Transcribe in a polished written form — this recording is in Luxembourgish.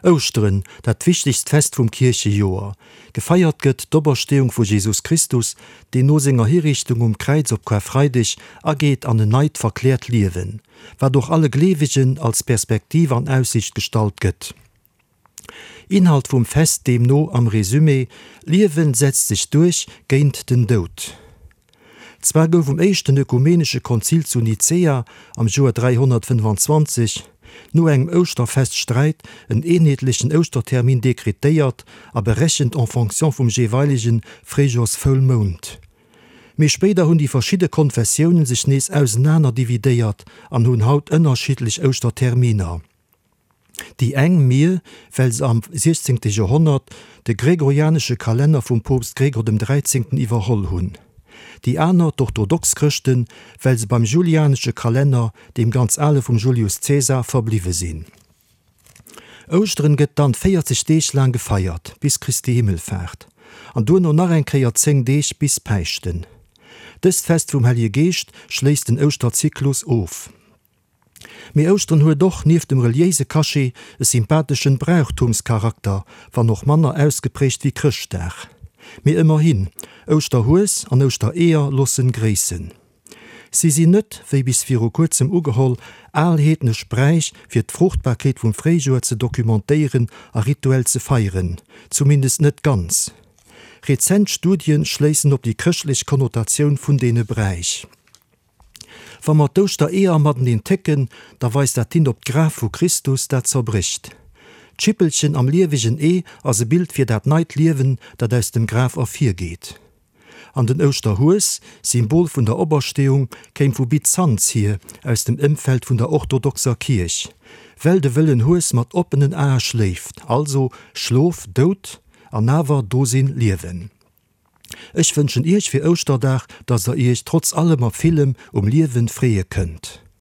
Ouschteren, dat wichtegst Fest vum Kierchejoer. Gefeiert gëtt d'Opersteeung vu Jesus Christus, deen no senger Hiriichtung um Kräiz op Karfreideg ageet an en neit, verkläert Liewen, wat och alle Gleewegen als Perspektiv an Aussiicht gestallt gëtt. Inhalt vum Fest deemno am Resumé, D'Liewen setzt sech duerch géint den Doud. Zwar gouf um éischten ökumenesche Konzil zu Nicäa am Joer 325, no engem Ouschterfeststräit, en eenheetlechen Ouschtertermin dekretéiert a berechent en fonction vum jeeweilege Fréijoersvoulmound. Mee spéider hunn déi verschidde Konfessiounen sech nees ausenaner dividéiert an hunn haut ënnerschiddlech Ouschterterminer. Déi eng, mir, well se am siechzéngte Joerhonnert de gregorianesche Kalenner vum Poopst Gregor dem Dräizéngten iwwerholl hunn. Déi aner, d'orthodox Chrëschten, well se beim julianesche Kalenner, deem ganz ale vum Julius Caesar, verbliwwe sinn. Ouschteren gëtt dann 40 Deeg laang gefeiert, bis Christi Himmelfaart, an duerno nach eng Kéier 10 Deeg bis Päischten. Dëst Fest vum Hellege Geescht schléisst den Ouschterzyklus of. Mee Ouschteren huet och, nieft dem reliéise Cachet, e sympatheschen Brauchtumscharakter, wann och manner ausgeprägt wéi Chrëschtdag. Mee ëmmerhin, Ouschterhues an Ouschtereeër loossen gréissen. Si sinn net, wéi bis viru kuerzem ugeholl, al heednesch Bräich fir d'Fruchtbarkeet vum Fréijoer ze documentéieren a rituell ze feieren, zumindest net ganz. Rezent Studien schléissen op déi chrëschtlech Konnotatioun vun deene Bräich. Wa mer d'Ouschtereeër mateneen técken, da weist dat hin op d'Graf vu Christus, dat zerbrécht. D'Schippelchen am liewegen Ee ass e Bild fir dat neit Liewen, dat aus dem Graf ervirgeet. An den Ouschterhues, Symbol vun der Opersteeung, kéim vu Byzanz hier, aus dem Ëmfeld vun der orthodoxer Kierch, well de wëllen Hues mat oppenen Ae schléift, also Schlof, Doud, an awer Dosinn, Liewen. Ech wënschen Iech fir Ouschterdag, dass der Iech trotz allem a villem um Liewen freeë kënnt.